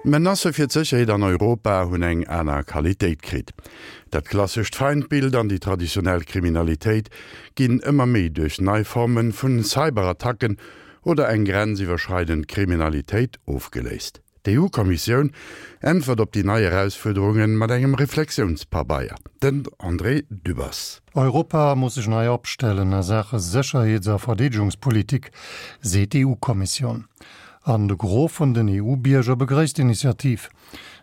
D'Menacë fir d'Sécherheet an Europa hunn eng aner Qualitéit kritt. Dat klassescht Feindbild an déi traditionell Kriminalitéit ginn ëmmer méi duerch nei Forme vun Cyberattacken oder eng grenziwwerschreidend Kriminalitéit ofgeléist. D'EU-Kommissioun äntwert op déi nei Erausfuerderunge mat engem Reflexiounspabeier. Den André Dübbers. Europa muss sech nei opstellen a Saache Sécherheets a Verdeedegungspolitik, seet d'EU-Kommissioun. An de Gros vun den EU-Bierger begréisst d'Initiativ,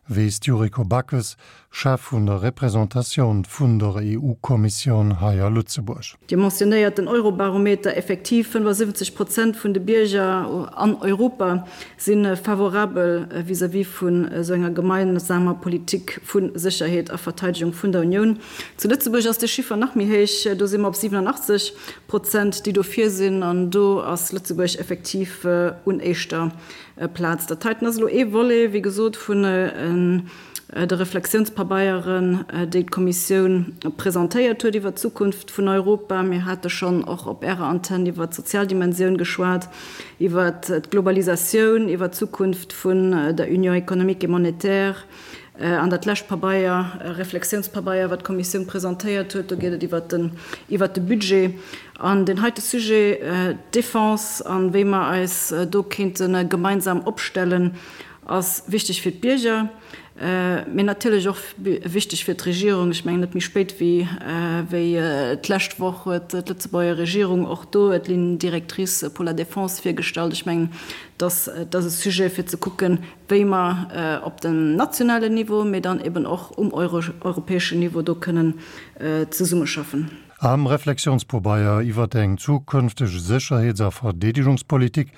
weess d'Yuriko Backes, Chef vun der Representatioun vun der EU-Kommissioun hei a Lëtzebuerg. Dir mentionnéiert den Eurobarometer. Effektiv, 75 Prozent vun de Bierger an Europa si favorabel vis-à-vis vun esou enger gemeinsamer Politik vu Sécherheet a Verteidegung vun der Unioun. Zu Lëtzebuerg ass de Chiffer nach méi héich, do si mer op 87 Prozent, déi dofir sinn. An do ass Lëtzebuerg effektiv un éischter Plaz. Dat heiten ass elo ee Volet, wéi gesot, vun de Reflexiounspabeieren, déi d'Kommissioun presentéiert huet iwwert d'Zukunft vun Europa. Mir hate schonn och op Ärer Antenn iwwert d'sozial Dimensioun geschwat, iwwert d'Globalisatioun, iwwert d'Zukunft vun der Union économique et monétaire. An dat lescht Pabeier, Reflexiounspabeier, wat d'Kommissioun presentéiert huet, do geet et iwwert den, iwwert de Budget. An deen heite Sujet, d'Défense an wéi mer eis do kéinte gemeinsam opstellen, ass wichteg fir d'Bierger, mee natierlech och wichteg fir d'Regierung. Ech mengen, net méi spéit wéi wéi d'lescht Woch huet d'Lëtzebuerger Regierung och do d'Ligne directrice pour la défense virgestallt. Ech mengen, dass dat ass e Sujet, fir ze kucken, wéi mer op dem nationalen Niveau, mee dann eben och um europäeschen Niveau do kënnen zesummeschaffen. Am Reflexionspobeier iwwert eng zukünfteg Sécherheets a Verdeedegungspolitik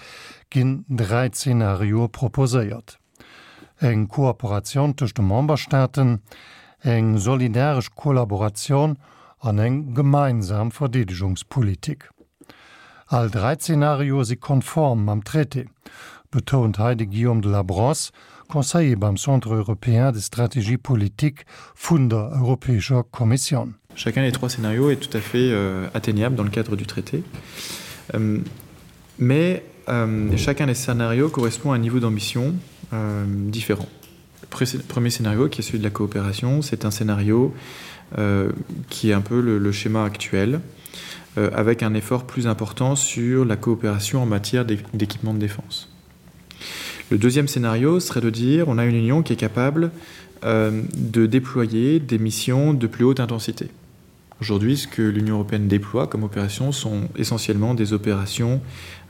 ginn 3 Zenarioe proposéiert, eng Kooperatioun tëscht de Memberstaaten, eng solidaresch Kollaboratioun an eng gemeinsam Verdeedegungspolitik. All 3 Zenarioe si konform mam Traité, betount hei de Guillaume de la Brosse, Conseiller beim Centre européen de stratégie politique vun der Europäescher Kommissioun. Chacun des trois scénarios est tout à fait euh, atteignable dans le cadre du traité. Euh, mais euh, chacun des scénarios correspond à un niveau d'ambition euh, différent. Le premier scénario, qui est celui de la coopération, c'est un scénario euh, qui est un peu le, le schéma actuel, euh, avec un effort plus important sur la coopération en matière d'équipement de défense. Le deuxième scénario serait de dire on a une union qui est capable euh, de déployer des missions de plus haute intensité. Aujourd'hui, ce que l'Union européenne déploie comme opération sont essentiellement des opérations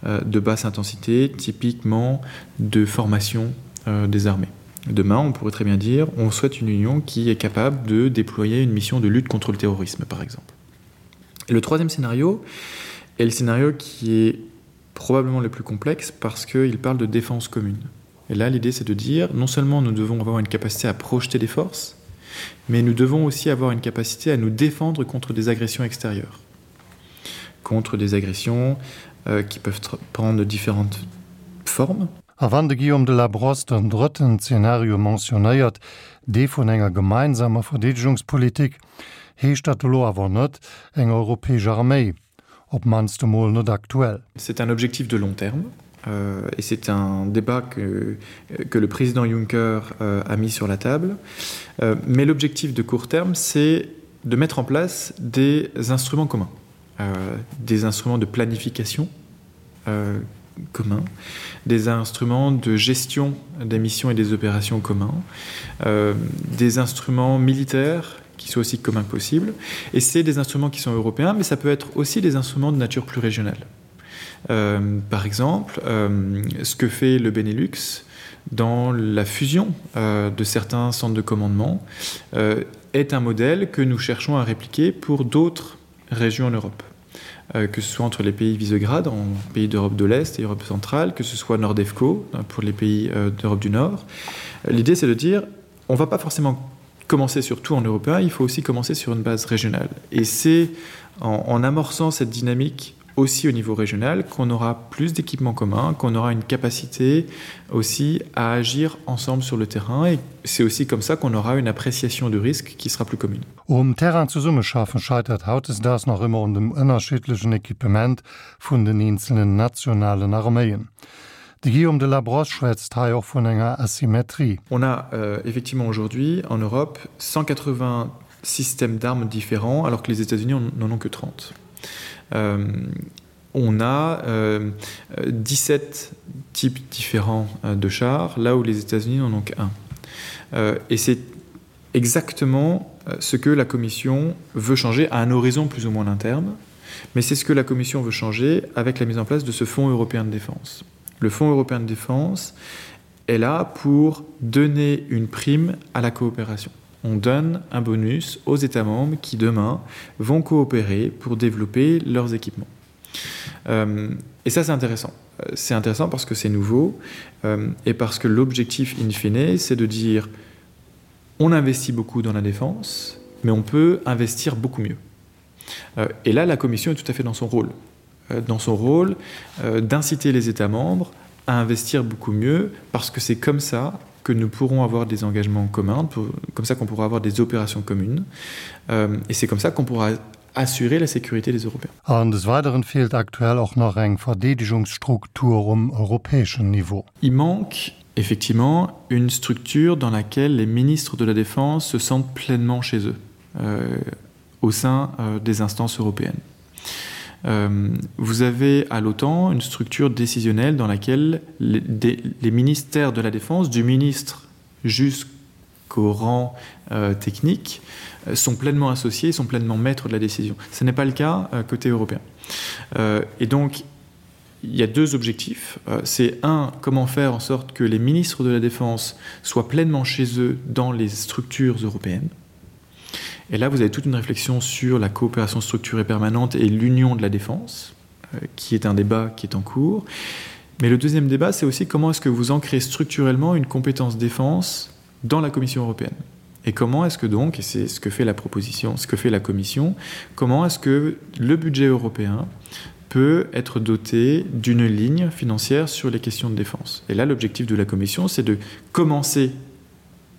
euh, de basse intensité, typiquement de formation euh, des armées. Demain, on pourrait très bien dire on souhaite une union qui est capable de déployer une mission de lutte contre le terrorisme, par exemple. Et le troisième scénario est le scénario qui est probablement le plus complexe parce qu'il parle de défense commune. Et là, l'idée, c'est de dire non seulement nous devons avoir une capacité à projeter des forces, mais nous devons aussi avoir une capacité à nous défendre contre des agressions extérieures, contre des agressions euh, qui peuvent prendre différentes formes. A wann de Guillaume de la Brosse den drëtten Zeenario mentionnéiert, dee vun enger gemeinsamer Verdeedegungspolitik, heescht dat elo awer net eng europäesch Arméi, op d'mannst emol net aktuell. C'est un objectif de long terme euh, et c'est un débat que, que le président Juncker euh, a mis sur la table. Euh, mais l'objectif de court terme, c'est de mettre en place des instruments communs, euh, des instruments de planification euh, communs, des instruments de gestion des missions et des opérations communs, euh, des instruments militaires qui soient aussi communs que possible. Et c'est des instruments qui sont européens, mais ça peut être aussi des instruments de nature plus régionale. Euh, par exemple, euh, ce que fait le Benelux dans la fusion euh, de certains centres de commandement euh, est un modèle que nous cherchons à répliquer pour d'autres régions en Europe. Euh, que ce soit entre les pays Visegrad en pays d'Europe de l'Est et Europe centrale, que ce soit Nordefco pour les pays euh, d'Europe du Nord. L'idée c'est de dire on ne va pas forcément commencer surtout en européen, il faut aussi commencer sur une base régionale. Et c'est en, en amorçant cette dynamique aussi au niveau régional qu'on aura plus d'équipements communs, qu'on aura une capacité aussi à agir ensemble sur le terrain et c'est aussi comme ça qu'on aura une appréciation du risque qui sera plus commune. Um Terrain zesummeschaffen scheitert hautdesdaags nach ëmmer un dem ënnerschiddlechen Equipement vun den eenzelnen nationalen Arméien. De Guillaume de Labrosse schwätzt hei och vun enger Asymmetrie. On a euh, effectivement aujourd'hui en Europe 180 systèmes d'armes différents alors que les États-Unis n'en ont que 30. Euh, on a euh, 17 types différents euh, de chars, là où les États-Unis n'en ont qu'un. Euh, et c'est exactement euh, ce que la Commission veut changer à un horizon plus ou moins interne, mais c'est ce que la Commission veut changer avec la mise en place de ce Fonds européen de défense. Le Fonds européen de défense est là pour donner une prime à la coopération. On donne un bonus aux États membres qui demain vont coopérer pour développer leurs équipements. Euh, et ça c'est intéressant. Euh, c'est intéressant parce que c'est nouveau euh, et parce que l'objectif in fine, c'est de dire on investit beaucoup dans la défense, mais on peut investir beaucoup mieux. Euh, et là, la Commission est tout à fait dans son rôle, euh, dans son rôle euh, d'inciter les États membres à investir beaucoup mieux, parce que c'est comme ça que nous pourrons avoir des engagements communs, pour, comme ça qu'on pourra avoir des opérations communes, euh, et c'est comme ça qu'on pourra assurer la sécurité des Européens. An des Weideren feelt aktuell och nach eng Verdeedegungsstruktur um europäeschen Niveau. Il manque effectivement une structure dans laquelle les ministres de la défense se sentent pleinement chez eux euh, au sein euh, des instances européennes. Euh, vous avez à l'OTAN une structure décisionnelle dans laquelle les, des, les ministères de la défense du ministre jusqu'au rang euh, technique euh, sont pleinement associés, sont pleinement maîtres de la décision. Ce n'est pas le cas euh, côté européen. Euh, et donc il y a deux objectifs. Euh, c'est un, comment faire en sorte que les ministres de la défense soient pleinement chez eux dans les structures européennes. Et là, vous avez toute une réflexion sur la coopération structurée permanente et l'union de la défense, euh, qui est un débat qui est en cours. Mais le deuxième débat, c'est aussi comment est-ce que vous ancrez structurellement une compétence défense dans la Commission européenne. Et comment est-ce que donc, et c'est ce que fait la proposition, ce que fait la Commission, comment est-ce que le budget européen peut être doté d'une ligne financière sur les questions de défense. Et là, l'objectif de la Commission, c'est de commencer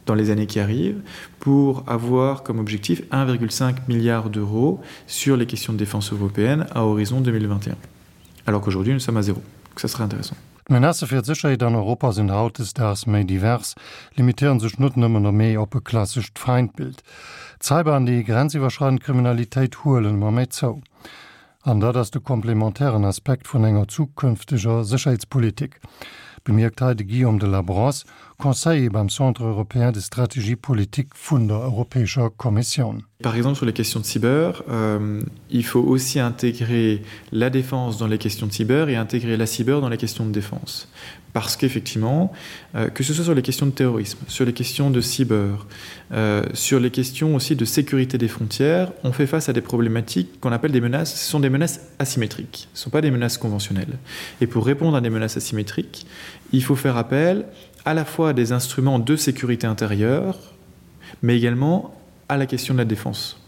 dans les années qui arrivent pour avoir comme objectif 1,5 milliard d'euros sur les questions de défense européenne à horizon 2021. Alors qu'aujourd'hui, nous sommes à zéro. Donc ça serait intéressant. D'Menacë fir d'Sécherheet an Europa sinn hautdesdaags méi divers, limitéiere sech net nëmmen méi op e klassescht Feindbild. D'Cyber an déi grenziwwerschreidend Kriminalitéit huelen ëmmer méi zou. An dat ass de komplementären Aspekt vun enger zukünfteger Sécherheetspolitik, bemierkt hei de Guillaume de Labrosse, Conseiller beim Centre européen de stratégie politique vun der Europäescher Kommissioun. Par exemple sur les questions de cyber, euh, il faut aussi intégrer la défense dans les questions de cyber et intégrer la cyber dans les questions de défense. Parce qu'effectivement, euh, que ce soit sur les questions de terrorisme, sur les questions de cyber, euh, sur les questions aussi de sécurité des frontières, on fait face à des problématiques qu'on appelle des menaces, ce sont des menaces asymétriques, ce ne sont pas des menaces conventionnelles. Et pour répondre à des menaces asymétriques, il faut faire appel à la fois à des instruments de sécurité intérieure, mais également à la question de la défense.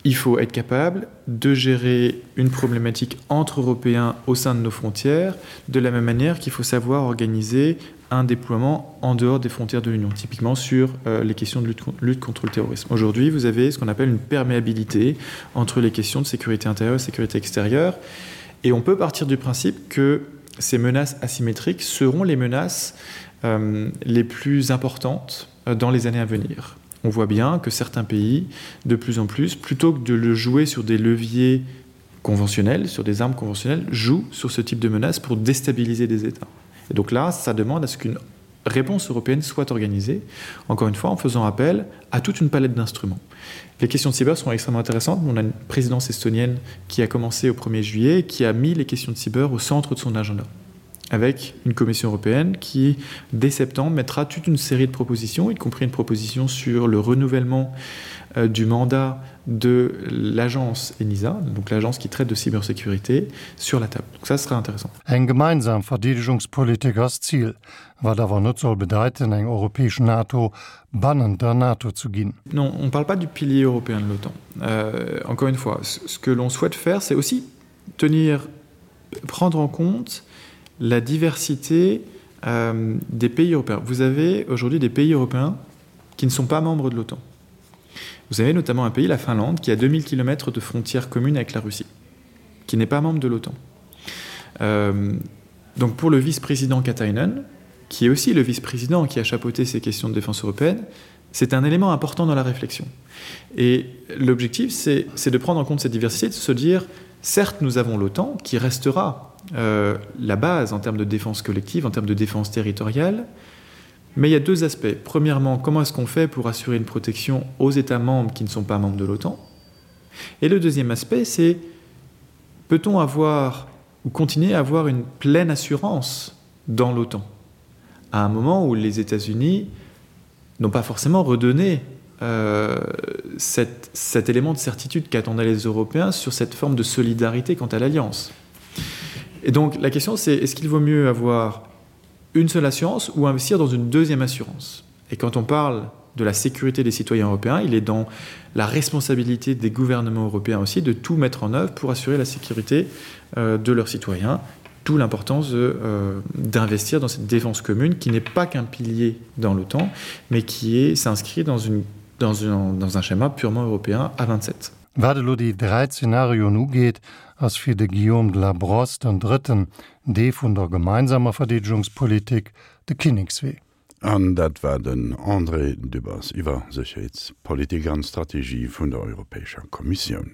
Il faut être capable de gérer une problématique entre Européens au sein de nos frontières, de la même manière qu'il faut savoir organiser un déploiement en dehors des frontières de l'Union, typiquement sur euh, les questions de lutte, lutte contre le terrorisme. Aujourd'hui, vous avez ce qu'on appelle une perméabilité entre les questions de sécurité intérieure et sécurité extérieure. Et on peut partir du principe que ces menaces asymétriques seront les menaces euh, les plus importantes euh, dans les années à venir. On voit bien que certains pays, de plus en plus, plutôt que de le jouer sur des leviers conventionnels, sur des armes conventionnelles, jouent sur ce type de menaces pour déstabiliser des États. Et donc là, ça demande à ce qu'une réponse européenne soit organisée, encore une fois en faisant appel à toute une palette d'instruments. Les questions de cyber sont extrêmement intéressantes. On a une présidence estonienne qui a commencé au 1er juillet et qui a mis les questions de cyber au centre de son agenda avec une commission européenne qui, dès septembre, mettra toute une série de propositions, y compris une proposition sur le renouvellement euh, du mandat de l'agence ENISA, donc l'agence qui traite de cybersécurité, sur la table. Donc ça sera intéressant. Eng gemeinsam Verdeedegungspolitik ass d'Zil, wat awer net soll bedeiten, eng europäesch NATO bannent der NATO zu ginn. Non, on ne parle pas du pilier européen de l'OTAN. Euh, encore une fois, ce que l'on souhaite faire, c'est aussi tenir, prendre en compte la diversité euh, des pays européens. Vous avez aujourd'hui des pays européens qui ne sont pas membres de l'OTAN. Vous avez notamment un pays, la Finlande, qui a 2000 km de frontières communes avec la Russie, qui n'est pas membre de l'OTAN. Euh, Donc pour le vice-président Katainen, qui est aussi le vice-président qui a chapeauté ces questions de défense européenne, c'est un élément important dans la réflexion. Et l'objectif, c'est de prendre en compte cette diversité, de se dire, certes, nous avons l'OTAN qui restera euh, la base en termes de défense collective, en termes de défense territoriale, mais il y a deux aspects. Premièrement, comment est-ce qu'on fait pour assurer une protection aux États membres qui ne sont pas membres de l'OTAN Et le deuxième aspect, c'est peut-on avoir ou continuer à avoir une pleine assurance dans l'OTAN à un moment où les États-Unis n'ont pas forcément redonné euh, cette, cet élément de certitude qu'attendaient les Européens sur cette forme de solidarité quant à l'alliance. Et donc la question c'est est-ce qu'il vaut mieux avoir une seule assurance ou investir dans une deuxième assurance Et quand on parle de la sécurité des citoyens européens, il est dans la responsabilité des gouvernements européens aussi de tout mettre en œuvre pour assurer la sécurité euh, de leurs citoyens tout l'importance euh, d'investir dans cette défense commune qui n'est pas qu'un pilier dans l'OTAN, mais qui s'inscrit dans, une, dans, une, dans un schéma purement européen à 27. Wat elo déi 3 Zenarioen ugeet, ass fir de Guillaume de la Brosse den drëtten, dee vun der gemeinsamer Verdeedegungspolitik, de Kinnekswee. An dat war den André Dübbers iwwer Sécherheetspolitik an Strategie vun der Europäescher Kommissioun.